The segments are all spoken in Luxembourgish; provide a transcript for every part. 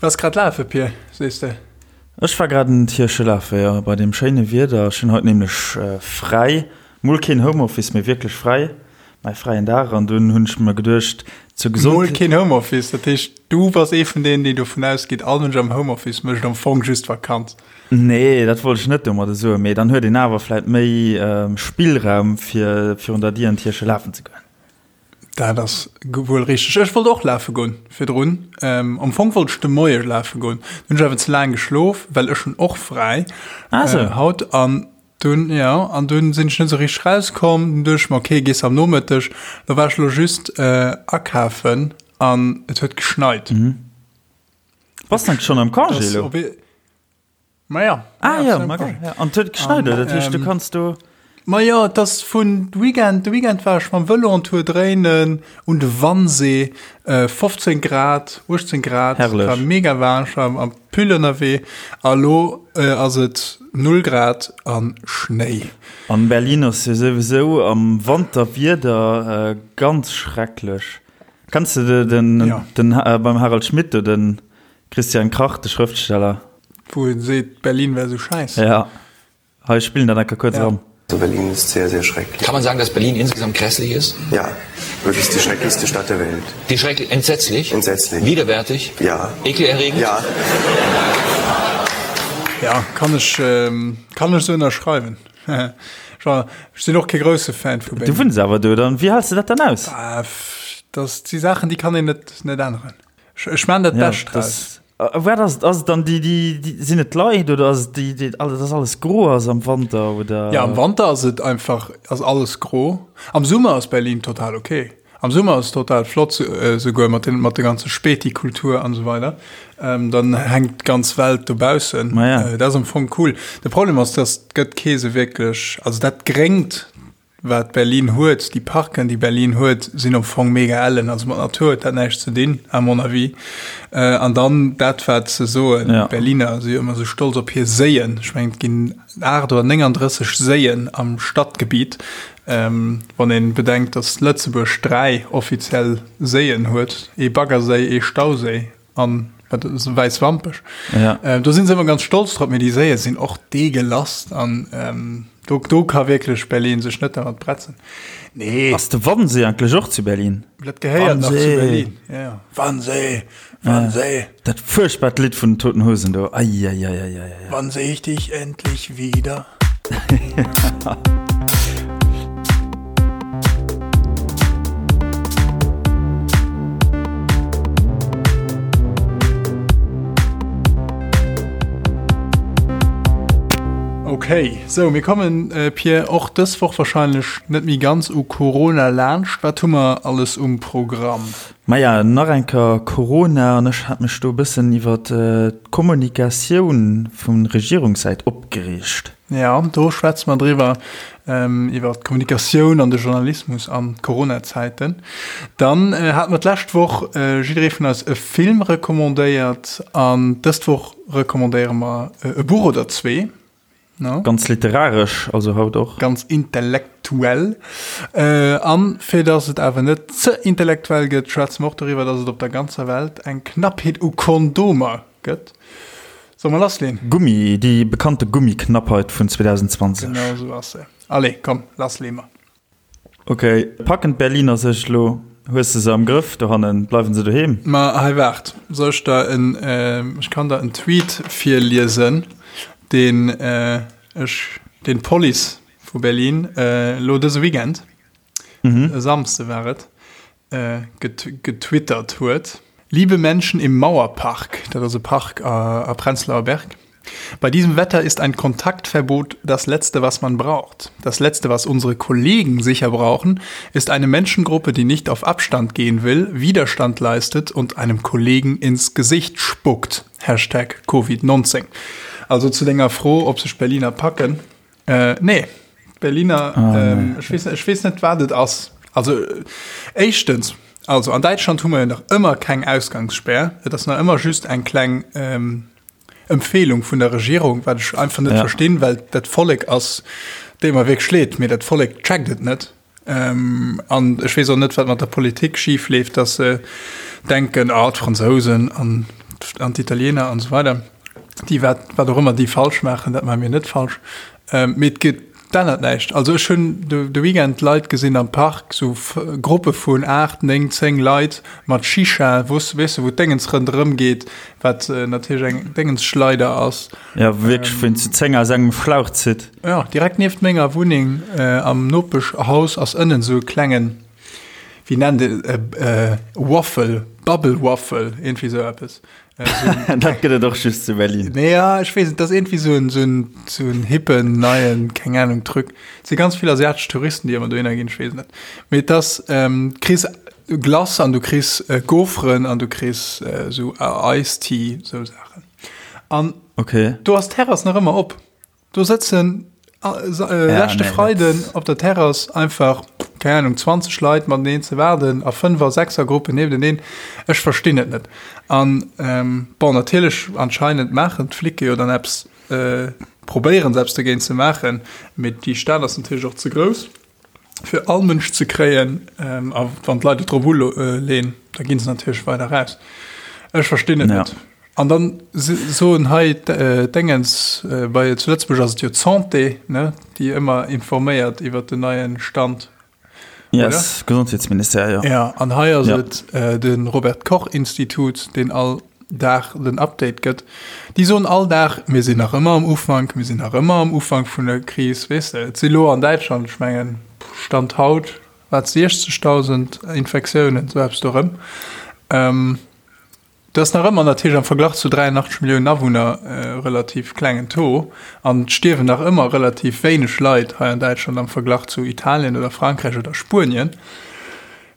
Du waars grad lafe, Pir, sees de? Ech war grad en Tierche lafe, jo, bei deem schéine Wieder. Ech hunn haut nämlech fräi, mol keen Homeoffice, mee wierklech fräi, mäi fräien Dag. An dunn hunn ech mer geduecht, zur Gesondheet. Mol keen Homeoffice, dat heescht, du bass ee vun deenen, déi dovun ausgeet, all Mënsch am Homeoffice mécht am Fong just Vakanz. Nee, dat wollt ech net domadder soen, mee dann huet een awer vläit méi Spillraum, fir virun der Dier en Tierche lafen ze goen. Dat ass wuel richteg. Ech wollt och lafe goen virdrun. Am Fong wollt ech de Moie lafe goen. Dunn hunn ech awer ze laang geschlof, well ech hunn och fräi ah, so. haut. An dunn, ja, an dunn sinn ech net esou richteg rauskomm. Dunn duecht ech mer, okay, gees am Nomëtteg. Lo war ech lo just akafen an et huet geschneit. Mhm. Bass de schonn am Congé lo? Ma ja. Ah ja, ma geil. Ja. An et huet geschneit, oder? Dat heescht, du kanns do. Ma jo, et ass vun Weekend, de Weekend war ech mam Vëlo en Tour dréinen un de Wannsee, 15 Grad, 18 Grad, Herrlech. war mega waarm, ech war am Pull ënnerwee a lo ass et 0 Grad an Schnéi. An Berlin ass jo souwisou am Wanter Wieder ganz schrecklech. Kenns de den, Ja. den beim Harald Schmidt do den Christian Krach, de Schrëftsteller. Wou en seet, Berlin wär sou schäiss. Ja, hei spillen dat enker kuerz eran. Berlin ist sehr, sehr schrecklich. Kann man sagen, dass Berlin insgesamt grässlich ist? Ja, wirklich die schrecklichste Stadt der Welt. Die schrecklich, entsetzlich? Entsetzlich. Widerwärtig? Ja. Ekelerregend? Ja. Ja, kann ech, kann ech sou ënnerschreiwen. Ech sinn och kee grousse Fan vu Berlin. Du wunns awer do, dann, wéi häls de dat dann aus? Dat si Saachen, déi kann een net, net änneren. Ech maan dat Ja, Bescht draus. das, wat ass et? Ass et dann déi, déi, déi, sinn et d'Leit oder ass et déi, déi, alles, dass alles gro ass am Wanter oder? Ja, am Wanter ass et einfach, ass alles gro. Am Summer ass Berlin total ok. Am Summer ass et total flott, souguer mat den, mat der ganze Späti-Kultur an esou weider. Dann hänkt d'ganz Welt dobaussen. Ma ja. Dat ass am Fong cool. De Problem ass, dass et gëtt kee sou wierklech, also dat Gréngt, Wat Berlin huet, déi Parken, déi Berlin huet, sinn am Fong mega ellen. Also mat Natur huet dat näischt ze dinn, à mon avis. An dann dat, wat se soen, d'Berliner si jo ëmmer esou stolz op hir Séien. Ech mengen, et ginn 8 oder 39 Séien am Stadgebiet. Wann ee bedenkt, datt Lëtzebuerg 3 offiziell Séien huet, ee Baggerséi, ee Stauséi An wat ass wäiss Wampech. Ja. Äh, do sinn se ëmmer ganz stolz drop, mee déi Séie sinn och deegelass an ähm, do, do ka wierklech Berlin sech net dermat bretzen. Nee. Ass de Wannsee eigentlech och zu Berlin? Dat gehéiert nach zu Wannsee. Berlin. Ja, ja. Wannsee, Wannsee. Dat fuerchtbart Lidd vun den Toten Hosen do. Eieieiei. Wann seh ich dich endlich wieder? Okay, sou mir kommen äh, Pierre och dës Woch wahrscheinlech net méi ganz u Corona laanscht. Wat hu mer alles um Programm? Maja, nach eng Kéier Corona an ech hat mech do e bëssen iwwer d'Kommunikatioun vu Regierungssäit opgereegt. Ja, do schwätze mer driwwer, iwwer d'Kommunikatioun an de Journalismus an Corona-Zäiten. Dann hate mer d'lescht Woch jidderee vun eis e Film recommandéiert an dëst Woch recommandéiere mer e Buch oder zwee. No? Ganz literaresch also haut och. Ganz intellektuell. An fir dass et awer net ze intellektuell gëtt, schwätze mer och doriwwer, dass et op der ganzer Welt eng Knappheet u Kondomer gëtt. Solle mer lassleen? Gummi, déi bekannte Gummiknappheit vun 2020. Genau esou ass se. Allez, komm, lasslee mer. Ok, packen d'Berliner sech elo? Hues de se am Grëff dohannen? Bleiwen se doheem? Ma hei waart, soll ech der en, ech kann der en Tweet virliesen, deen ech, deen d'Police vu Berlin elo dëse Weekend, e Samsde war et, getwittert huet. Liebe Menschen im Mauerpark, dat ass e Park a Prenzlauer Berg, bei diesem Wetter ist ein Kontaktverbot das Letzte, was man braucht. Das Letzte, was unsere Kollegen sicher brauchen, ist eine Menschengruppe, die nicht auf Abstand gehen will, Widerstand leistet und einem Kollegen ins Gesicht spuckt. Hashtag Covid-19. Also zu denger Fro, ob sech d'Berliner packen, Äh, nee. D'Berliner, ah, ähm, ech weess, ech weess net, wat et ass. Also, éischtens, also an Däitschland hu mer jo nach ëmmer keng Ausgangsspär. Et ass nach ëmmer just eng kleng ähm, Empfehlung vun der Regierung, wat ech einfach net ja. verstinn, well dat Vollek ass, deet mer wierklech leed, mee dat Vollek checkt et net. Ähm, an ech weess och net, wat mat der Politik schif leeft, dass se denken, ah, d'Fransousen an. An d'Italiener an esou weider, déi wat, wat och ëmmer déi falsch maachen, dat maache mir net falsch. Mee et gëtt, d'ännert näischt. Also ech hunn de, de Weekend Leit gesinn am Park, sou Gruppe vun 8, 9, 10 Leit mat Shisha, wou s, weess de, wou d'Déngens ronderëm geet, wat natierlech eng Déngensschleider ass. Jo, wierklech, wou een zu 10 aus engem Schlauch zitt. Jo, direkt nieft menger Wunneng am Nopeschhaus ass ënnen sou e klengen, wéi nennt een e Waffle, Bubble Waffle, iergendwéi sou eppes. Dat gëtt et och just zu Berlin. Nee, ja, ech weess net, dat ass iergendwéi sou en, sou en, sou en hippen, neien, keng Ahnung, Truc. Et si ganz vill asiatesch Touristen, déi ëmmer dohinner ginn, ech weess net. Mee et ass, du kriss Glace an du kriss Gaufren an du kriss sou Ice Tea, sou Saachen. An okay. do ass d'Terrass nach ëmmer op. Do sëtzen leschte Freiden op der Terrass einfach, keng Ahnung, 20 Leit mateneen ze waarden a Fënnwer-, Sechser-Gruppen niefteneen. Ech verstinn et net. An bon, natierlech anscheinend maachen d'Flicke jo dann eppes, probéieren se eppes dogéint ze maachen, mee déi Stad ass natierlech och ze grouss, fir all Mënsch ze kréien. A wann d'Leit et drop uleen, da gi se natierlech weider raus. Ech verstinn et net. An dann soen hei d'Déngens, bei zu Lëtzebuerg ass et jo d'Santé, ne, déi ëmmer informéiert iwwert den neie Stand, oder? Yes, Gesondheetsministère, jo. Ja, an hei ass et de Robert Koch Institut, deen all Dag den Update gëtt. Déi soen all Dag, mir sinn nach ëmmer am Ufank, mir sinn nach ëmmer am Ufank vun der Kris, weess de. Et si lo an Däitschland, ech mengen, Stand haut, wat, 60.000 Infektiounen, esou eppes do erëm. Dat ass nach ëmmer natierlech am Verglach zu 83 Milliounen Awunner e relativ klengen Taux. An et stierwen nach ëmmer relativ wéineg Leit hei an Däitschland am Verglach zu Italien oder Frankräich oder Spuenien.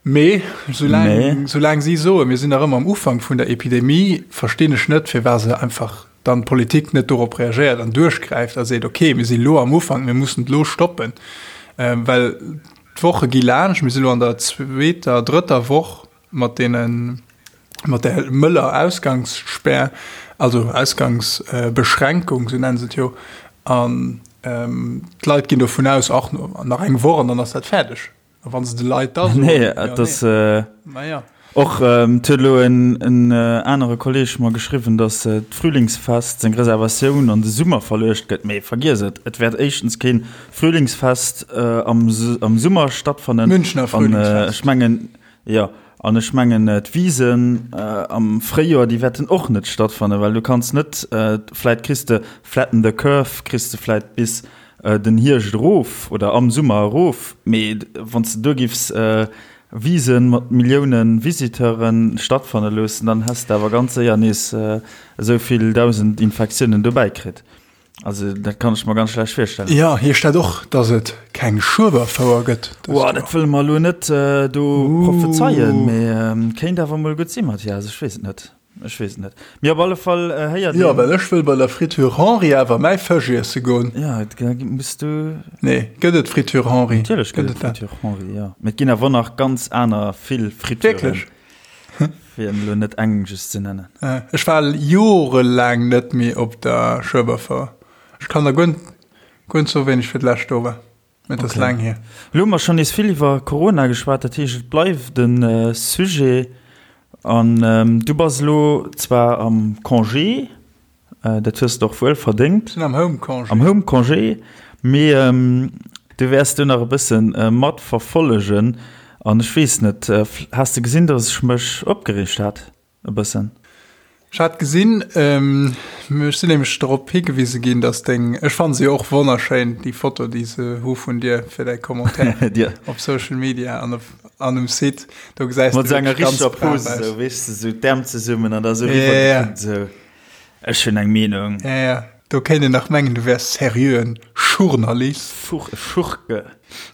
Mee soulaang, soulaang si soen, mir sinn nach ëmmer am Ufank vun der Epidemie, verstinn ech net, firwat se einfach dann d'Politik net dorop reagéiert an duerchgräift a seet, okay, mir si lo am Ufank, mir mussen et lo stoppen. Well d'Woche gi laanscht, mir si lo an der zweeter, drëtter Woch mat deenen, mat där mëller Ausgangsspär, also Ausgangsbeschränkung, sou nennen se et jo, an d'Leit ginn dovun aus, ach, nach eng Woch an dann ass dat fäerdeg. A wa se de Leit da soen, Nee, et ass, naja. Och et huet elo en anere Kolleeg mer geschriwwen, datt d'Frühlingsfest seng Reservatioun an de Summer verluecht gëtt. Mee vergiess et, et wäert éischtens kee Frühlingsfest am Summer stattfannen. Münchner Frühlingsfest. An ech mengen, Jo, an ech mengen d'Wisen am Fréijoer, déi wäerten och net stattfannen, well du kanns net, vläit kriss de flatten the curve, kriss de vläit bis den Hierscht erof oder am Summer erof, mee wann s de do giffs Wise mat Millioune Visiteure stattfanne loossen, dann häss de awer ganz séier nees esou vill 1.000 Infektiounen dobäi kritt. Also dat kann ech mer ganz schlecht virstellen. Jo, hie steet och, dass et keng Schueberfouer gëtt dëst Joer. Dat wëlle mer elo net do prophezeien, mee kéint awer mol gutt sinn, Mathias. Ech weess et net, ech weess et net. Mee op alle Fall héiert een. Jo, well ech wëll bei der Friture Henri awer mäi Fësch iesse goen. Jo, da muss du. Nee, gëtt et Friture Henri? Natierlech gëtt et Friture Henri, jo. Mee et ginn awer nach ganz aner vill Frituren. Wierklech? Fir elo net eng just ze nennen. Ech war jorelaang net méi op der Schueberfouer. Ech kann der guer guer net soen, wéini ech fir d'lescht do war. Mee et ass laang hier. Elo hu mer schonn nees vill iwwer Corona geschwat, dat heescht et bleift e Sujet. An du bass elo zwar am Congé, Dat hues de och wuel verdéngt. Sinn am Home Congé. Am Home Congé, mee du wäers do nach e bësse mat verfollegen. An ech weess net, has de gesinn, datt ech mech opgereegt hat e bëssen? Ech hat gesinn, ech sinn nämlech drop higewise ginn, datt deng, ech fanne se jo och wonnerschéin, déi Foto, déi se hu vun dir fir däi Commentaire op Social Media an op an um Site, do gesäis de wierklech ganz brav aus. Mat esou enger richteger Pose, esou, weess de, esou d'Äerm zesummen an da esou eriwwer gekuckt, esou. Ech hunn eng Meenung. Ja, ja, do kéint een nach mengen, du wäers seriöen Schurnalist. Fuch, Schurke.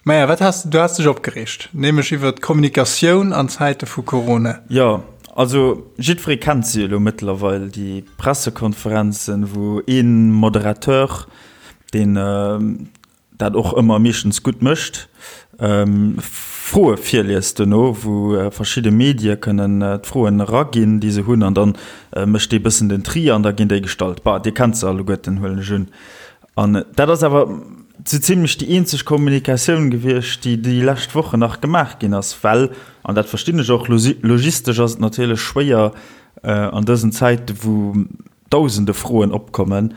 Maja, wat has du has dech opgereegt, nämlech iwwer d'Kommunikatioun an Zäite vu Corona. Jo, also jiddweree kennt se jo elo mëttlerweil, déi Pressekonferenzen, wou ee Moderateur, deen dat och ëmmer meeschtens gutt mécht, Froe virliest dono, wou verschidde Medie kënnen d'Froen eraginn, déi se hunn, an da mécht dee bëssen den Tri an da ginn déi gestallt. Bah, Dir kennt se alleguerten, huelen ech un. An dat ass awer sou zimlech déi eenzeg Kommunikatioun gewiescht, déi déi lescht Wochen nach gemaach ginn ass, well, an dat verstinn ech och, logistesch ass et natierlech schwéier. An dësen Zäite wou dausende Froen opkommen,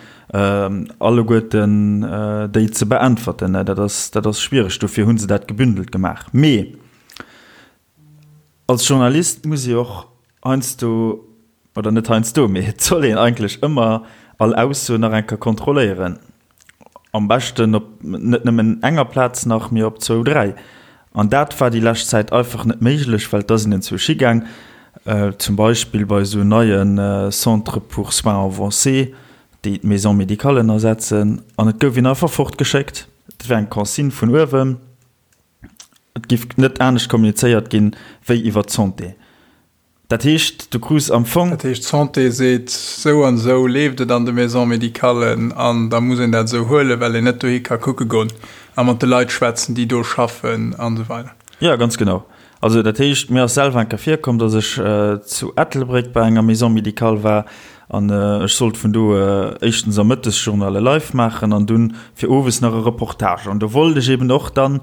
alleguerten déi ze beäntwerten, dat ass, dat ass schwiereg. Dofir hu se dat gebündelt gemaach. Mee als Journalist muss ee och heiansdo, oder net heiansdo, mee et soll een eigentlech ëmmer all Ausso nach eng Kéier kontrolléieren. Am beschten op net nëmmen enger Plaz nach, mee op zwou, dräi. An dat war déi lescht Zäit einfach net méiglech, well da sinn enzwousch higaang, zum Beispill bei esou neie Centres pour soins avancés, déi d'Maisons médicales ersetzen, an et gouf een einfach fortgeschéckt. Dat war eng Consigne vun uewen, et giff net anescht kommunizéiert ginn, wéi iwwer d'Santé. Dat heescht, du krus am Fong. Dat heescht, d'Santé seet, esou an esou leeft et an de Maisons médicales an da muss een dat esou huelen, well een net dohi ka kucke goen a mat de Leit schwätzen, déi do schaffen an esou weider. Jo, ganz genau. Also dat heescht, mir ass selwer eng Kéier virkomm, datt ech zu Ettelbréck bei enger Maison médicale war an ech sollt vun do éischtens am Mëttesjournal e Live maachen an dunn fir owes nach e Reportage. An do wollt ech eben och dann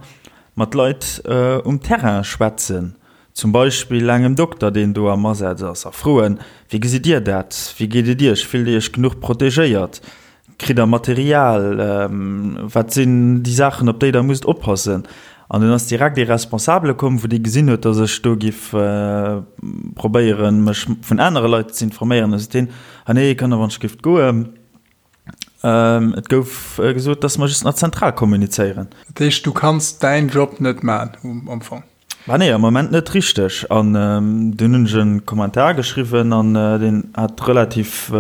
mat Leit um Terrain schwätzen. Zum Beispill engem Dokter, deen do am Asaz ass, a froen, Wéi gesitt Dir dat? Wéi geet et Iech? Fillt Dir Iech genuch protegéiert? Kritt Der Material? Wat sinn déi Saachen, op déi Der musst oppassen? An dunn ass direkt ee Responsabele komm, wou dee gesinn huet, datt ech do giff probéieren, mech vun anere Leit ze informéieren. Da sot deen, Ah nee, kann der wann ech giff goen. Et gouf gesot, dass mer just nach zentral kommunizéieren. Dat heescht, du kanns däin Job net maachen am Fong? Bah nee, am Moment net richteg. An dunn hunn ech e Kommentar geschriwwen an deen hat relativ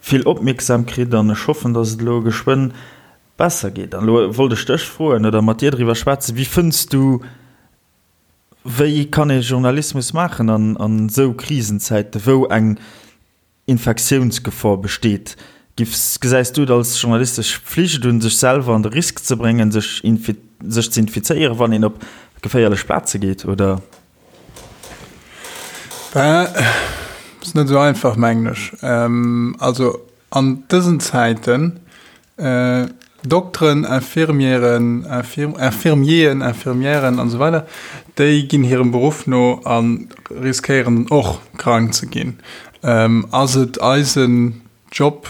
vill Opmierksam kritt an ech hoffen, dass et elo geschwënn besser geet. An elo wollt ech dech froen oder mat dir driwwer schwätzen, Wéi fënns du, wéi kann ee Journalismus maachen an esou Krisenzäiten, wou eng Infektiounsgefor besteet. Giffs, gesäis du et als journalistesch Pflicht un, sech selwer an de Risk ze bréngen, sech sech ze infizéieren, wann een op geféierlech Plaze geet, oder? Ben, ass net esou einfach, mengen ech. Also an dësen Zäiten Dokteren, Infirmieren, Infirmieren, Infirmièren an esou weider, déi ginn hirem Beruff no a riskéieren och krank ze ginn. Ass et eisen Job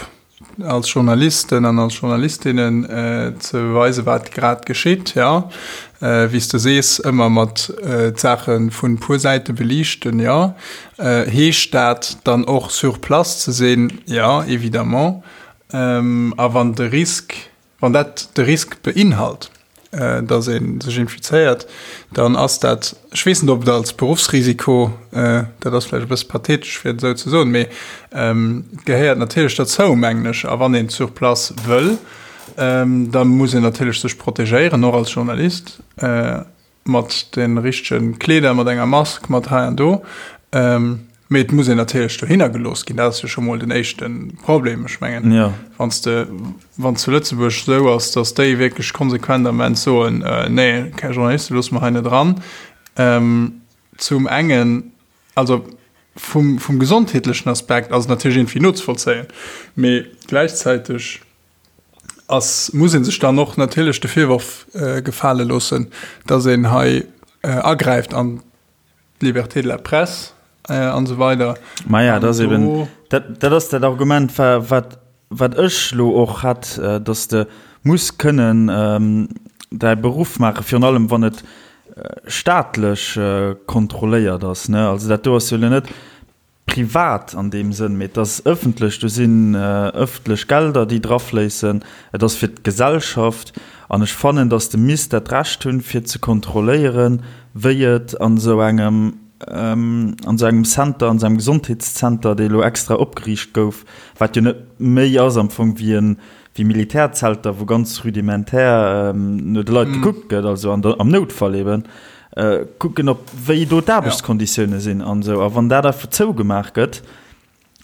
als Journalisten an als Journalistinnen ze weisen, wat grad geschitt? Jo. Wéi s de sees, ëmmer mat d'Saache vun puer Säite beliichten, jo. Heescht dat dann och sur place ze sinn? Jo, évidemment. A wann de Risk, wann dat de Risk beinhalt, datt ee sech infizéiert, dann ass dat, ech weess net, ob et als Beruffsrisiko, dat ass vläicht e bësse pathetesch, fir et esou ze soen, mee et gehéiert natierlech derzou, mengen ech. A wann een sur place wëll, da muss een natierlech sech protegéieren, och als Journalist. Mat de richtege Kleeder, mat enger Mask, mat hei an do. Mee et muss een natierlech dohinner gelooss ginn. Dat ass jo scho mol den éischte Problem. Ech mengen, wann s de, wann zu Lëtzebuerg esou ass, datt déi wierklech konsequent am Ament soen, nee, keng Journaliste loosse mer hei net eran. Zum engen, also vum, vum gesondheetlechen Aspekt ass et natierlech iergendwéi nozevollzéien, mee gläichzäiteg, ass, muss ee sech dann och natierlech de Virworf gefale loossen, dass een hei agräift an d'Liberté de la presse an esou weider. Maja, dat ass eben, dat, dat ass dat Argument, wat, wat ech elo och hat, dass de muss kënnen däi Beruff maachen, virun allem wann et staatlech kontrolléiert ass, ne. Also dat do ass jo elo net privat an deem Sënn, mee et ass ëffentlech, do sinn ëffentlech Gelder, déi drafléissen, et ass fir d'Gesellschaft an ech fannen, datt de misst dat Recht hunn, fir ze kontrolléieren, wéi et an esou engem, an esou engem Center, an esou engem Gesondheetszenter, dee elo extra opgeriicht gouf, wat jo net méi ass am Fong wéi e wéi Militärzelter, wou ganz rudimentär no de Leit gekuckt gëtt, also an der, am Noutfall eben, kucken, ob, wéi do d'Aarbechtskonditioune sinn an esou. A wann dat einfach zougemaach gëtt,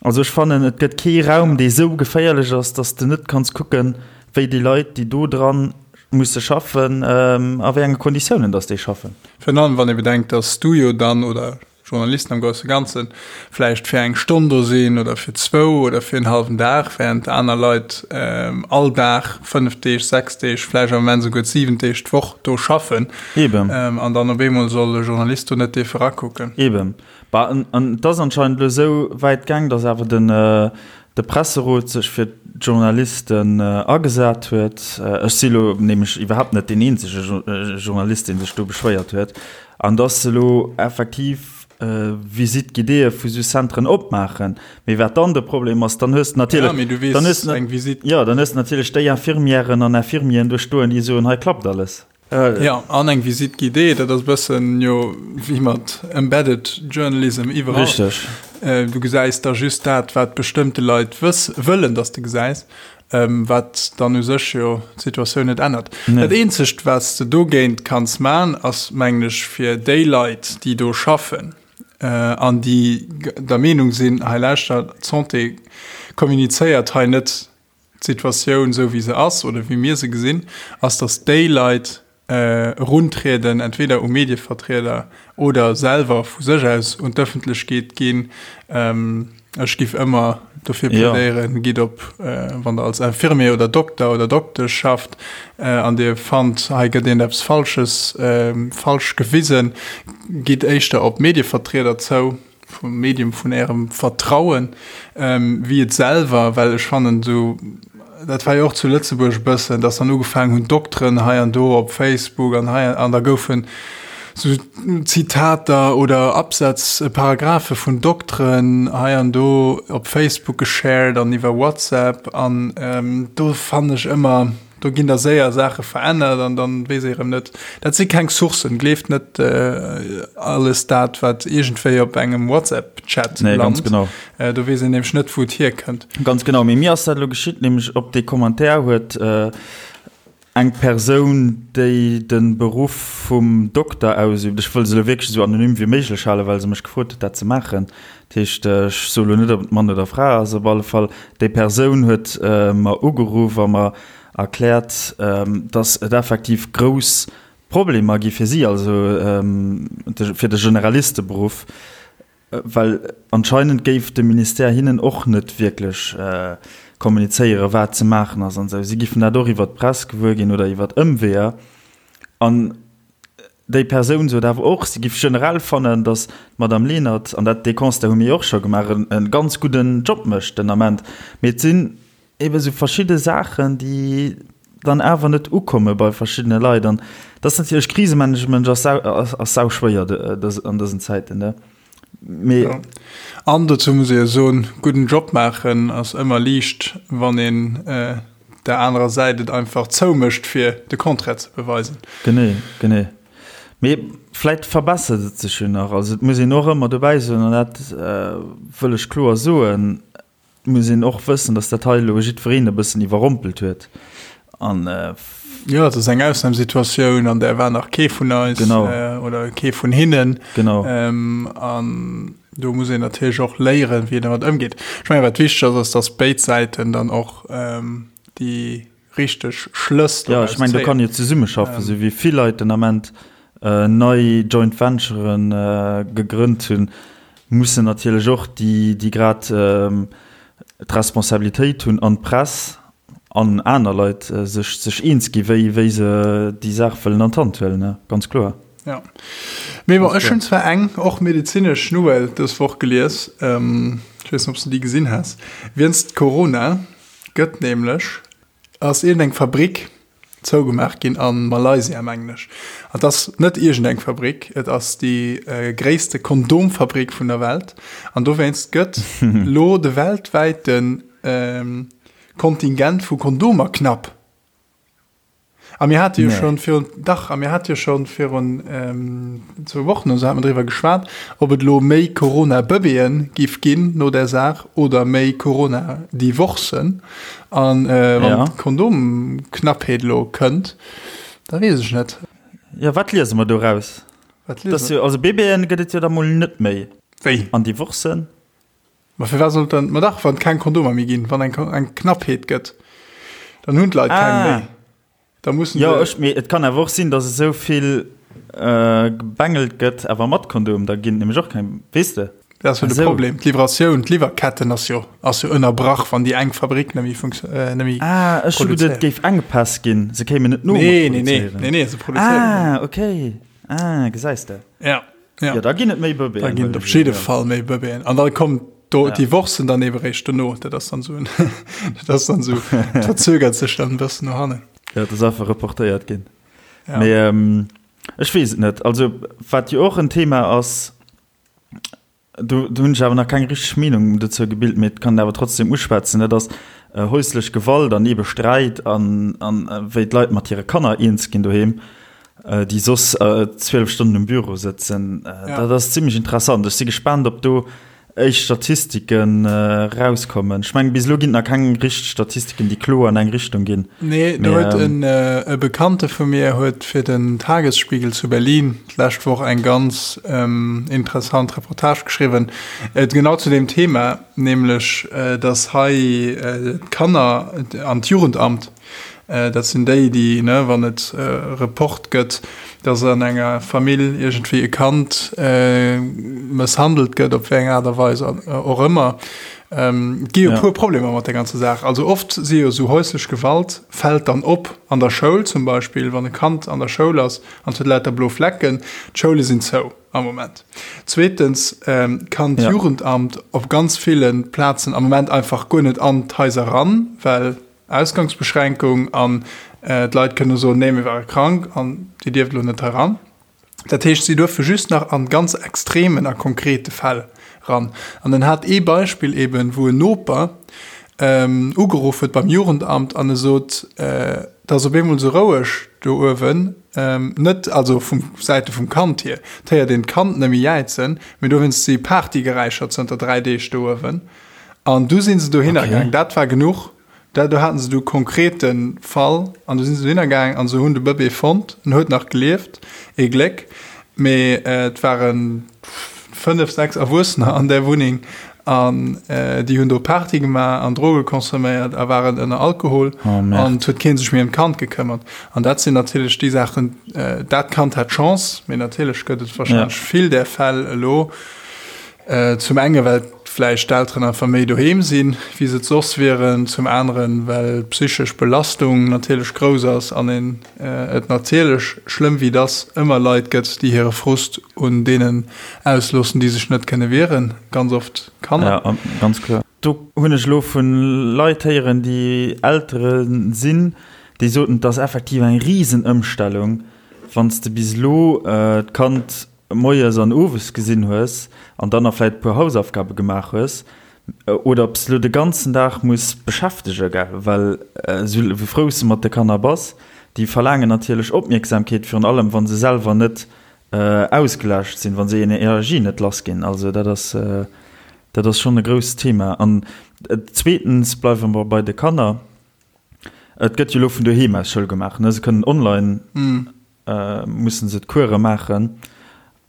also ech fannen, et gëtt kee Raum, dee sou geféierlech ass, datt s de net kanns kucken, wéi déi Leit, déi do dran musse schaffen, a wéi enge Konditiounen datt déi schaffen. Virun allem, wann ee bedenkt, datt s du jo dann, oder Journalisten am grousse Ganzen, vläicht fir eng Stonn do sinn oder fir zwou oder fir en hallwen Dag, während aner Leit all Dag, 5 Deeg, 6 Deeg, vläicht am Moment esouguer 7 Deeg d'Woch do schaffen. Eben. An dann op eemol soll e Journalist do net dierfe rakucken. Eben. Bah, an, an et ass anscheinend elo esou wäit gaang, datt awer den, de Presserot sech fir d'Journalisten agesat huet. Ech si elo nämlech iwwerhaapt net deen eenzege Journalist, dee sech do beschwéiert huet. An datt se elo effektiv Visite guidéeë vu sou Centren opmaachen. Mee wat dann de Problem ass, dann hues de natierlech, Ja, mee du weess, dann hues de, eng Visite. jo, dann hues de natierlech déi Infirmièren an Infirmieren do stoen, déi soen, hei klappt alles. Jo, an eng Visite guidée, dat ass e bëssen jo wéi mat embedded journalism iwwerall. Richteg. Du gesäis da just dat, wat bestëmmte Leit wëss, wëllen, datt s de gesäis, wat dann u sech jo d'Situatioun net ännert. Nee. Dat eenzegt, wat s de dogéint kanns man, ass, mengen ech, fir déi Leit, déi do schaffen an déi der Meenung sinn, hei lauschter, d'Santé kommunizéiert hei net d'Situatioun esou wéi se ass oder wéi mir se gesinn, ass, datt déi Leit eruntrieden, entweder u Medievertrieder oder selwer vu sech aus un d'Ëffentlechkeet ginn. Ech giff ëmmer dofir plädéieren, gitt op, wann Der als Infirmier oder Dokter oder Doktesch schafft an Dir fannt, hei gëtt iergendeppes Falsches falsch gewisen, gitt éischter op Medievertrieder zou. vum Medium vun ärem Vertrauen, wéi et selwer, well ech fannen esou, dat war jo och zu Lëtzebuerg e bëssen, dass dann ugefaangen hunn Dokteren hei an do op Facebook an hei an da goufen esou Zitater oder Absätz, Paragraphe vun Dokteren hei an do op Facebook geshared an iwwer WhatsApp an do fannen ech ëmmer, Do ginn da séier Saache verännert an dann weess ee rëm net. Dat si keng Sourcen. Gleeft net alles dat, wat iergendwéi op engem WhatsApp-Chat Nee, ganz lant. genau. Do weess een nämlech net, wou et hierkënnt. Ganz genau. Mee mir ass dat elo geschitt, nämlech op dee Commentaire huet eng Persoun, déi de Beruff vum Dokter ausübt, ech wëll se elo wierklech esou anonym wéi méiglech halen, well se mech gefrot huet, dat ze maachen, Dat heescht, ech soe lo net, ob et Mann oder Fra ass, op alle Fall, déi Persoun huet mer ugeruff a mer erkläert, dass et effektiv grouss Problemer gi fir si, also fir de Generalisteberuff, well anscheinend géif de Ministère hinnen och net wierklech kommunizéieren, wat ze maachen ass an esou. Si giffen dat och iwwert d'Press gewuer ginn oder iwwert Ëmweeër. An Déi Persoun sot awer och, si giff generell fannen, datt d'Madame Lenert, an dat, dee Constat hu mir jo och scho gemaach, e ganz gudden Job mécht den Ament. Mee et sinn ebe sou verschidde Saachen, déi dann awer net ukomme bei verschiddene Leit. An dat ass natierlech, Krisemanagement ass sau, ass sauschwéier an dësen Zäiten, ne? Mee. Jo. An dozou muss ee jo soen, gudden Job maachen ass ëmmer liicht, wann een der anerer Säit et einfach zoumécht, fir de Contraire ze beweisen. Genee, genee. Mee vläit verbessert et sech jo nach. Also et muss een och ëmmer dobäi soen, an dat wëll ech kloer soen, et muss een och wëssen, datt dat hei elo jiddwereen e bëssen iwwerrompelt huet. An. Jo, et ass eng Ausnamsituatioun, an där war nach kee vun eis. Genau. Oder kee vun hinnen. Genau. An do muss een natierlech och léieren, wéi een domat ëmgeet. Ech mengen, wat wichteg ass, ass, datt béid Säiten dann och déi richteg Schlëss doraus zéien. Jo, ech mengen, do kann jo zesummeschaffen, esou wéi vill Leit den Ament nei Joint Venturen gegrënnt hunn, mussen natierlech och déi, déi grad d'Responsabilitéit hunn an d'Press an aner Leit sech, sech eens gi wéi, wéi se déi Saach wëllen an d'Hand huelen, ne, ganz kloer. Ja. Mee bon, ech hunn zwar eng och medezinesch Nouvelle dës Woch gelies, ech weess net, ob s de déi gesinn has, Wéinst Corona gëtt nämlech, ass iergendeng Fabrik zougemaach ginn a Malaysia, mengen ech. An et ass net iergendeng Fabrik, et ass déi gréisste Kondomfabrik vun der Welt. An dowéinst gëtt lo de weltwäite Kontingent vu Kondomer knapp. A mir hate jo schonn virun, dach, a mir hate jo schonn virun zwou Wochen oder sou hate mer driwwer geschwat, ob et elo méi Corona-Bëbeeën giff ginn no där Saach oder méi Corona-Divorcen. An wann d'Kondomknappheet elo kënnt, da weess ech net. Jo, wat liese mer doraus? Wat liese mer? Also Bëbeeën gëtt et jo da mol net méi. Wéi? An Divorcen? Ma firwat sollt dann, ma dach, wann et keng Kondomer méi ginn, wann eng eng Knappheet gëtt, dann hunn d'Leit keng méi. Da mussen Jo, ech, mee et kann awer och sinn, datt esou vill gebengelt gëtt, awer mat Kondom, da ginn et nämlech och keng, weess de? Dat ass jo de Problem, d'Livratioun, d'Liwwerketten ass jo, ass jo ënnerbrach, wann déi eng Fabrik net méi funktio-, net méi produzéiert. Ah, ech hu geduet, et géif Enkpäss ginn, se kéimen net no mat Nee, nee, nee, produzéieren. nee, nee, se produzéieren. Ah, okay, ah, gesäis de. Ja. Ja. Ja, da ginn et méi Bëbeeën. Da ginn et op jidde Fall méi Bëbeeën. An da kommt do ja. Divorcen dann eben réischt dono. Dat ass dann so, dat ass dann so, verzögert sech dann e bëssen no hannen. Ja, dat ass einfach reportéiert ginn. Ja. Mee ähm, ech weess et net. Also, wat jo och en Thema ass, Do hunn ech awer nach keng richteg Meenung dozou gebilt, mee et kann een awer trotzdem uschwätzen, dat ass häuslech Gewalt an eebe Sträit an wéi d'Leit mat hire Kanner eens ginn doheem, déi soss 12 Stonnen um Büro sëtzen. Dat ass zimmlech interessant. Ech si gespaant, ob do éischt Statistiken erauskommen. Ech mengen, bis elo ginn et nach keng richteg Statistiken, déi kloer an eng Richtung ginn. Nee, do huet e Bekannte vu mir huet fir den Tagesspiegel zu Berlin d'lescht Woch eng ganz interessant Reportage geschriwwen, genau zu deem Thema, nämlech dass hei d'Kanner an d'Jugendamt, dat sinn déi, déi, ne, wann et e Report gëtt, dass an enger Famill iergendwéi e Kand mësshandelt gëtt, op wéi eng Aart a Weis och ëmmer, Et gi jo e puer Problemer mat der ganzer Saach. Also oft si jo esou häuslech Gewalt fält dann op an der Schoul zum Beispill, wann e Kand an der Schoul ass an et huet lauter blo Flecken. D'Schoule sinn zou am Moment. Zweetens kann d'Jugendamt op ganz ville Plazen am Moment einfach guer net an d'Haiser ran, well Ausgangsbeschränkung an d'Leit kënne soen, nee mir ware krank an Dir dierft elo net hei ran. Dat heescht, si duerfe just nach an ganz extremen a konkrete Fäll ran. An en hat ee Beispill eben, wou en Noper ugeruff huet beim Jugendamt an e sot, Et ass op eemol esou roueg do uewen, net also vum Säite vum Kand hier, et héiert een d'Kand nëmme jäizen, mee dowéinst si Partygeräischer zënter 3 Deeg do uewen. An du si se dohinner gaang. Dat war genuch. Dat do haten se du konkrete Fall an du sinn se dohinner gaang an se hunn de Bëbee fonnt. En huet nach gelieft, ee Gléck, mee et ware 5, 6 Erwuessener an där Wunneng an déi hunn do Party gemaach an Droge consomméiert a waren ënner Alkohol an et huet kee sech méi ëm d'Kand gekëmmert. An dat sinn natierlech déi Saachen, dat Kand hat Chance, mee natierlech gëtt et warscheinlech vill där Fäll elo. Zum enge well vläicht d'Elteren einfach méi doheem sinn, wéi se et soss wieren, zum aneren, well d'psychesch Belastung natierlech grouss ass an een et natierlech, schlëmm wéi et ass, ëmmer Leit gëtt, déi hire Frust un deenen ausloossen, déi sech net kënne wieren, ganz oft Kanner. Ja, ganz kloer. Do hunn ech elo vu Leit héieren, déi Eltere sinn, déi soten, et ass effektiv eng Risenëmstellung, wann s de bis elo d'Kand moies an owes gesinn hues an dann nach vläit e puer Hausaufgabe gemaach hues, oder ob s de lo de ganzen Dag muss beschäftege, gell, well esou wéi frou s de mat de Kanner bass, déi verlaangen natierlech Opmierksamkeet, virun allem wa se selwer net ausgelaascht sinn, wa se hir Energie net lass ginn. Also dat ass, dat ass schonn e grousst Thema. An zweetens bleiwe mer bei de Kanner, et gëtt jo elo vun doheem aus Schoul gemaach, ne, se kënnen online mussen se d'Kuere maachen.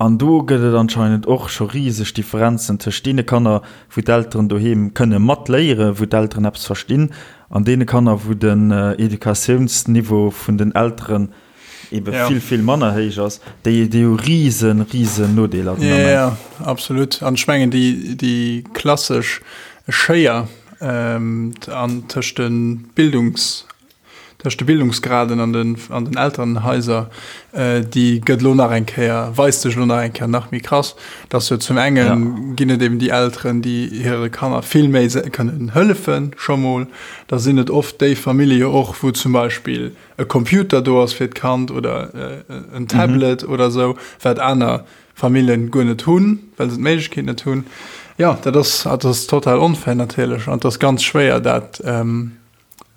An do gëtt et anscheinend och scho riseg Differenzen tëscht deene Kanner, wou d'Elteren doheem kënne matléieren, wou d'Elteren eppes verstinn, an deene Kanner, wou den Educatiounsniveau vun den Elteren ebe vill, vill manner héich ass. Déi, déi hu risen, risen Nodeeler den Ament. Jo, absolut. An ech mengen, déi, déi klassesch Schéier an tëscht de Bildungs Tëscht de Bildungsgraden an den an den Elterenhaiser, déi gëtt elo nach eng Kéier, weist sech elo nach eng Kéier nach méi krass, dass jo zum enge ginn et eben déi Elteren, déi hire Kanner vill méi kënnen hëllefen scho mol. Da sinn et oft déi Famillje jo och, wou zum Beispill e Computer do ass fir d'Kand oder en Tablet oder esou, wat aner Familljen guer net hunn, well se d'Méiglechkeet net hunn. Jo, dat ass, dat ass total onfair natierlech an et ass ganz schwéier dat,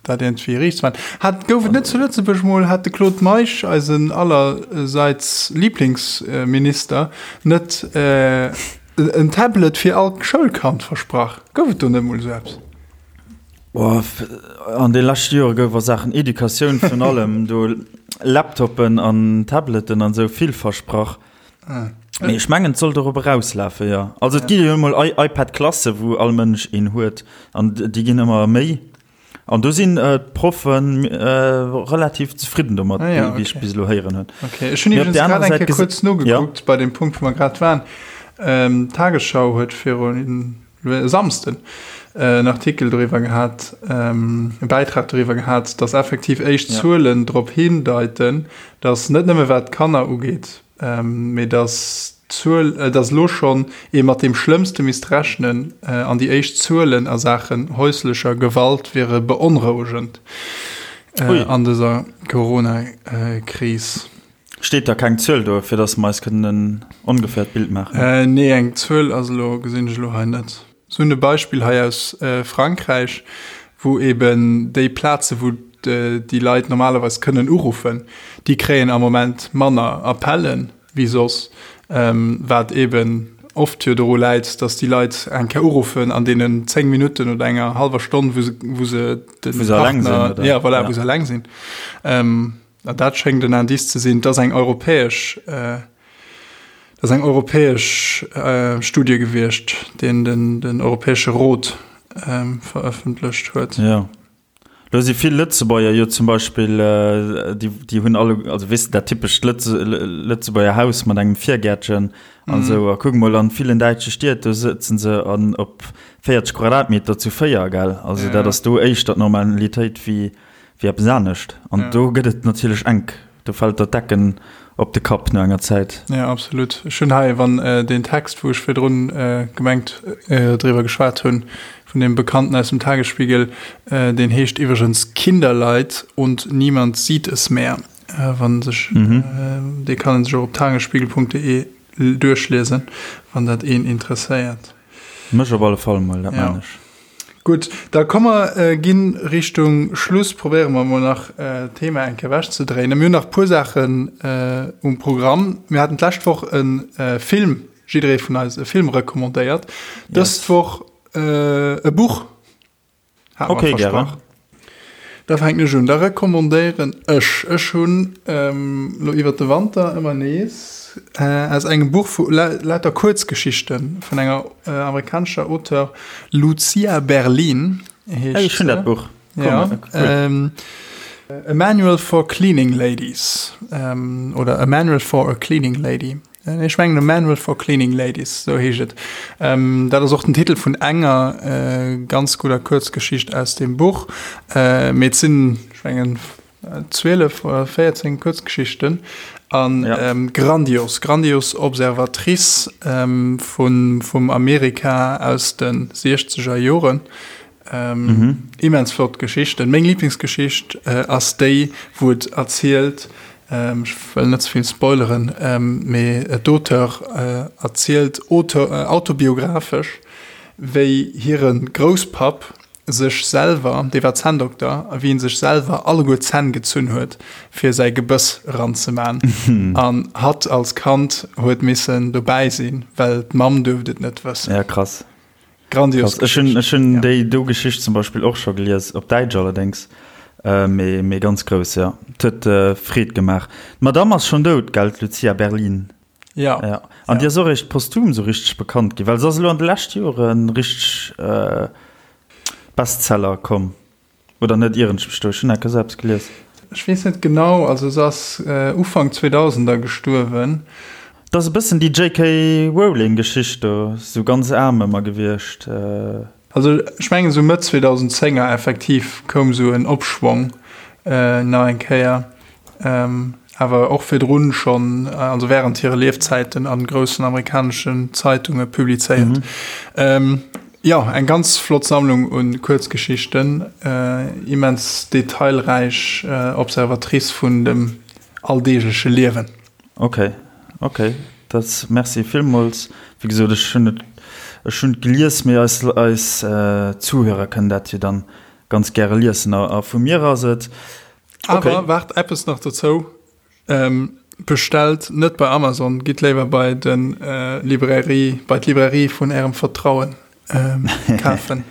Dat iergendwéi riicht ze maachen. Hat, gouf et net zu Lëtzebuerg mol, hat de Claude Meisch, eisen allerseits Lieblingsminister, net en Tablet fir all Schoulkand versprach? Gouf et do net mol esou eppes? Oh, an de leschte Jore gouf a Saachen Educatioun virun allem do Laptoppen an Tableten an esou vill versprach. Mee ech mengen, et soll dorop erauslafen, jo. Also et gi jo emol iPad-Klasse wou all Mënsch een huet an déi ginn ëmmer méi. An do sinn d'Proffe relativ zefridden domat, ah, ja, okay. wéi ech bis elo héieren hunn. Okay. Ech hunn iwwregens grad eng Kéier kuerz nogekuckt ja. bei dem Punkt, wou mer grad waren. Ähm, D'Tagesschau huet virun e Samsden en Artikel doriwwer gehat, e Bäitrag doriwwer gehat, datt effektiv éischt Zuelen drop hindeiten, datt net nëmme wat d'Kanner ugeet, mee datt. d'Zuel, dass elo schonn ee mat deem Schlëmmste misst rechnen an déi éischt Zuelen a Saachen häuslecher Gewalt wiere beonrouegend an dëser Corona-Kris. Steet da keng Zuel do, fir dass mer eis kënnen en ongefährt Bild maachen? Nee, eng Zuel ass elo, gesinn ech elo hei net. Se hunn e Beispill hei aus Frankräich, wou eben déi Plaze wou déi Leit normalerweis kënnen uruffen, déi kréien am Moment manner Appellen wéi soss, wat eben oft jo doru läit, datt déi Leit eng Kéier uruffen an deenen 10 Minutten oder enger hallwer Stonn, wou se, wou se de Partner, ja voilà, wou se eleng sinn. An dat schéngt en Indice ze sinn, dass eng europäesch, dass eng europäesch Studie gewiescht, deen den, den Europäesche Rot verëffentlecht huet. Jo. Lo si vill Lëtzebuerger jo zum Beispill, déi, déi hunn alle, also weess de, dat typescht Lëtze, Lëtzebuerger Haus mat engem Virgäertchen an esou. A kuck mol an villen däitsche Stied, do sëtzen se an op 40 Quadratmeter zu 4, gell? Also dat ass do éischter d'Normalitéit wéi Wéi eppes anescht. An do gëtt et natierlech enk. Do fält der d'Decken op de Kapp no enger Zäit. Jo, absolut. Ech hunn hei, wann deen Text, wou ech virdrun gemengt driwwer geschwat hunn, vun deem Bekannten aus dem Tagesspiegel, deen heescht iwwregens Kinderleid und niemand sieht es mehr, wann sech, dee kann een sech och op tagesspiegel.de duerchliesen, wann dat een interesséiert. Mech op alle Fall mol, dat maan ech. Gutt, da komm mer ginn Richtung Schluss. Probéiere mer mol nach d'Thema eng Kéier ewechzedréinen. Mir hunn nach e puer Saachen um Programm. Mir haten d'lescht Woch e Film, jidderee vun eis e Film recommandéiert. Dës Woch e Buch. Hat mer versprach. Da fänken ech un. Da recommandéieren ech, ech hunn elo iwwert de Wanter ëmmer nees aus engem Buch vu lauter Kuerzgeschichte vun enger amerikanescher Auteur, Lucia Berlin heescht se. Ech hunn dat Buch. Ja. A Manual for Cleaning Ladies oder A Manual for a Cleaning Lady. Ech mengen A Manual for Cleaning Ladies, sou heescht et. Dat ass och den Titel vun enger ganz gudder Kuerzgeschicht aus deem Buch. Mee et sinn, ech mengen, 12 oder 14 Kuerzgeschichten a grandios, grandios Observatrice vun, vum Amerika aus de siechzeger Joren. Immens flott Geschichten. Meng Lieblingsgeschicht ass déi, wou et erzielt, ech wëll net ze vill spoileren, mee d'Auteur erzielt autobiographesch, wéi hire Grousspapp sech selwer, dee war Zänndokter, a wéi en sech selwer alleguer d'Zänn gezunn huet, fir säi Gebëss eranzeman. An hatt als Kand huet missen dobäi sinn, well d'Mamm duerft et net wëssen. Ja, krass. Grandios Ech hunn ech hunn déi do Geschicht zum Beispill och scho gelies, op Däitsch allerdéngs, mee mee ganz grouss, jo. Et huet Freed gemaach. D'Madamm ass schonn dout, gell, d'Lucia Berlin? Jo. Ja. An déi ass och eréischt posthum esou richteg bekannt ginn, well se ass elo an de leschte Jore richteg Bestseller komm. Oder net ieren ech mech do? Ech hunn enker esou eppes gelies. Ech weess net genau, also se ass Ufank 2000er gestuerwen. Et ass e bëssen déi JK Rowling Geschicht do, sou ganz aarm ëmmer gewiescht. Also ech mengen esou Mëtt 2010er effektiv koum esou en Opschwong nach eng Kéier. Awer och virdrun schonn, also während hire Liefzäiten a groussen amerikaneschen Zeitunge publizéiert. Jo, eng ganz flott Sammlung u Kuerzgeschichten, immens detailräich Observatrice vun dem alldeegleche Liewen. Ok, ok, dat merci villmools. Wéi gesot, ech hunn et, ech hunn et gelies, mee eis, eis Zuhörer kënnen dat jo dann ganz gäre liessen. A vu mir ass et Awer okay. Waart eppes nach dozou. Ähm, bestellt net bei Amazon, gitt léiwer bei den äh, Librairie, bei d'Librairie vun ärem Vertrauen ähm, kafen.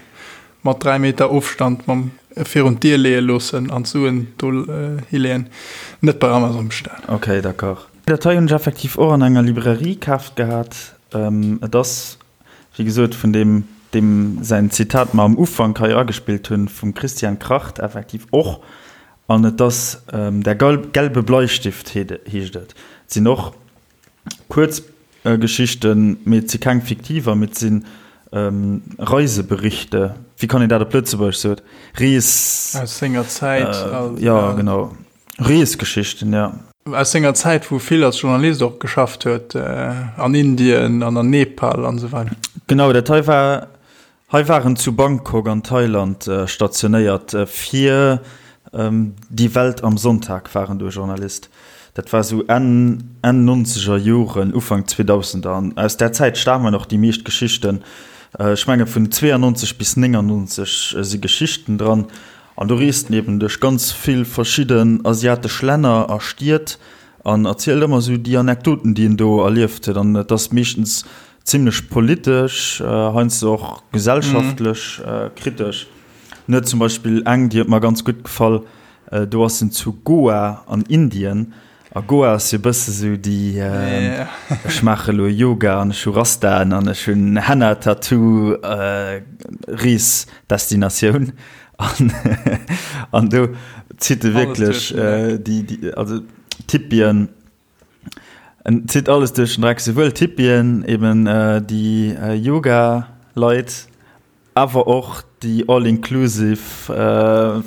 Mat 3 Meter Ofstand mam äh, virun d'Dier leeë loossen an d'Suen do äh, hileeën. Net bei Amazon bestellen. Okay, d'accord. Dat hei hunn ech effektiv och an enger Librairie kaaft gehat. Ähm, et ass, wéi gesot, vun deem, deem säin Zitat mer am Ufank hei agespillt hunn, vum Christian Kracht effektiv och. An et ass Der gelbe Bleistift heescht et. Et sinn och Kuerzgeschichten, mee et si keng fiktiver, mee et si Reiseberichte, wéi kann een dat op Lëtzebuergesch soen? Rees. Aus senger Zäit. Jo, genau. Reesgeschichten, jo. Aus senger Zäit, wou e vill als Journalist och geschafft huet, an Indien an an Nepal an esou weider. Genau, dat hei war, hei war en zu Bangkok an Thailand stationéiert fir Die Welt am Sonntag war en do Journalist. Dat war esou Enn, Enn nonzeger Joren, Ufank Zweedausender an aus där Zäit stamen och déi meescht Geschichten. Ech menge vun 92 bis 99 si Geschichten dran. An do reest en eben duerch ganz vill verschidden asiatesch Länner a Stied an erzielt ëmmer esou déi Anekdoten, déi en do erlieft huet. An et ass meeschtens zimlech politesch, heiansdo och gesellschaftlech kritesch. En huet zum Beispill eng, déi huet mer ganz gutt gefall, do ass en zu Goa an Indien A Goa ass jo bësse sou déi ech maache lo Yoga an ech hu Rastaen an ech hunn Henna Tattoo Reesdestinatioun an an do zitt e wierklech déi déi also d'Hippien en zitt alles duerch den Dreck, souwuel d'Hippien eben déi Yoga Leit Awer och déi all inclusive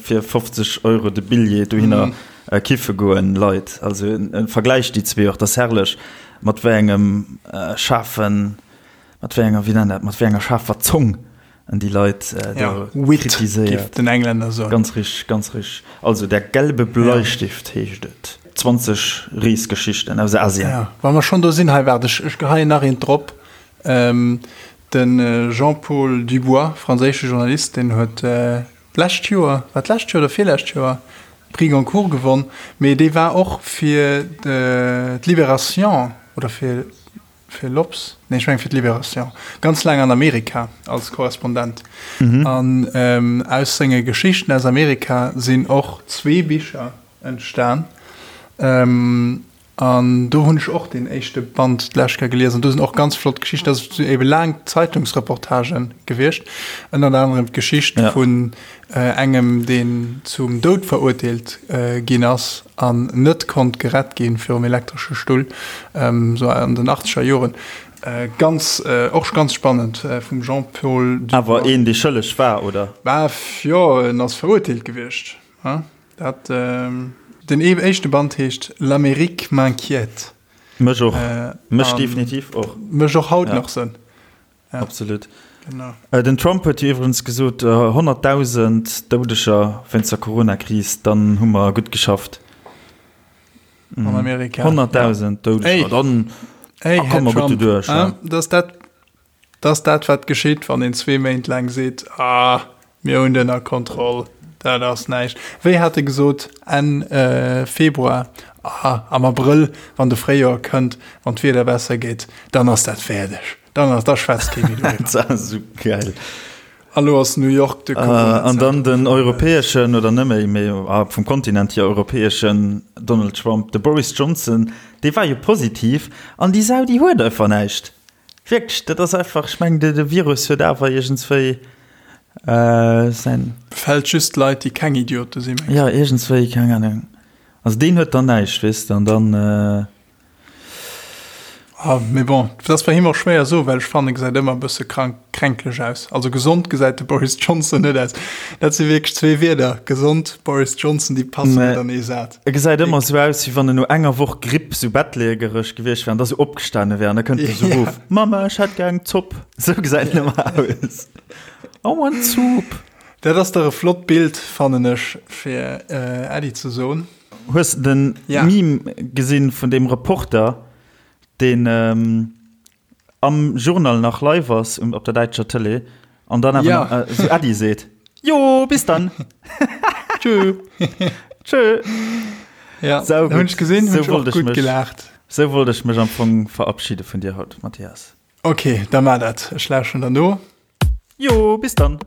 fir 50 Euro de Billjee dohinner kiffe goen Leit. Also en vergläicht déi zwee och, dat ass herrlech mat wéi engem schaarfen, mat wéi enger, wéi nennt dat, mat wéi enger schaarfer Zong en déi Leit do kritiséiert. Den Englänner soen. Ganz richteg, ganz richteg. Also Der gelbe Bleistift heescht et. 20 Reesgeschichten aus Asien. Ja, wa mer schonn do sinn, hei waart, ech geheien nach eent drop. De Jean-Paul Dubois, franséische Journalist, deen huet d'lescht Joer, war d'lescht Joer oder virlescht Joer, Prix Goncourt gewonn, mee dee war och fir d'Libération oder fir fir l'Obs, nee ech mengen fir d'Libération, ganz laang an Amerika als Korrespondent. An aus senge Geschichten aus Amerika sinn och zwee Bicher entstan. An do hunn ech och deen éischte Band d'lescht Kéier gelies an do sinn och ganz flott Geschichten. Dat sinn ebe laang Zeitungsreportagen gewiescht, ënnert anerem d'Geschicht vun engem, deen zum Doud verurteelt ginn ass an net konnt gerett gi virum elektresche Stull, sou an den achtzeger Joren. Ganz, och ganz spannend vum Jean-Paul Dubois. Awer een, dee schëlleg war, oder? Bah, jo, en ass verurteelt gewiescht. Dat, den éischte Band heescht L'Amérique m'inquiète. Mech och. Mech definitiv och. Mech och haut nach sënn. Ja. Absolut. Genau. Den Trump huet jo iwwregens gesot, 100.000 Doudeger wéinst der Corona-Kris, dann hu mer gutt geschafft. An Amerika. 100.000 Doudeger, dann komme mer gutt doduerch. Dass dat Dat ass dat, wat geschitt, wann een zwee Méint laang seet, Ah, mir hunn et ënner Kontroll, dat ass näischt. Wéi hat e gesot Enn Februar? Ah, am Abrëll, wann de Fréijoer kënnt, wann d'Wieder besser gétt, dann ass dat fäerdeg, dann ass, da schwätzt kee méi doriwwer. Dat ass esou geil. A lo ass New York de Corona-Zentrum. An dann den europäeschen, oder net méi, mee vum Kontinent hier europäeschen Donald Trump, de Boris Johnson, dee war jo positiv an déi Sau, déi huet einfach näischt. Wierklech, dat ass einfach, ech mengen, de Virus huet awer iergendswéi säin. Befält just Leit, déi keng Idiote sinn, mengs du? Jo, iergendswéi, keng Ahnung. Also deen huet dann näischt, weess de, an dann. Ah, mee bon, dat ass bei him och schwéier soen, well ech fannen, e gesäit ëmmer e bësse krank, kränkleg aus. Also gesond gesäit de Boris Johnson net aus. Dat si wierklech zwee Wierder, gesond, Boris Johnson, déi passen net an ee Saz. E gesäit ëmmer esou aus, wéi wann en no enger Woch Gripp sou bettlägereg gewiescht wär an da sou opgestane wär an da kënnt e sou erof, Mama, ech hätt gär eng Zopp. Sou gesäit en ëmmer aus. I want soup. Dat ass dach e flott Bild, fannen ech, fir Äddi ze soen. Hues de den Meme gesinn vun deem Reporter, deen am Journal nach live ass um, op der däitscher Tëlee an dann awer Ja. nach, äh, sou Äddi seet. Jo, bis dann. Tschö. Tschö. Ja, Sau hunn gutt. ech gesinn, hunn Sou ech och wollt ech gutt mech, gelaacht. sou wollt ech mech am Fong verabschiede vun dir haut, Mathias. Okay, da mar dat. Ech lauschten der no. Jo, bis dann.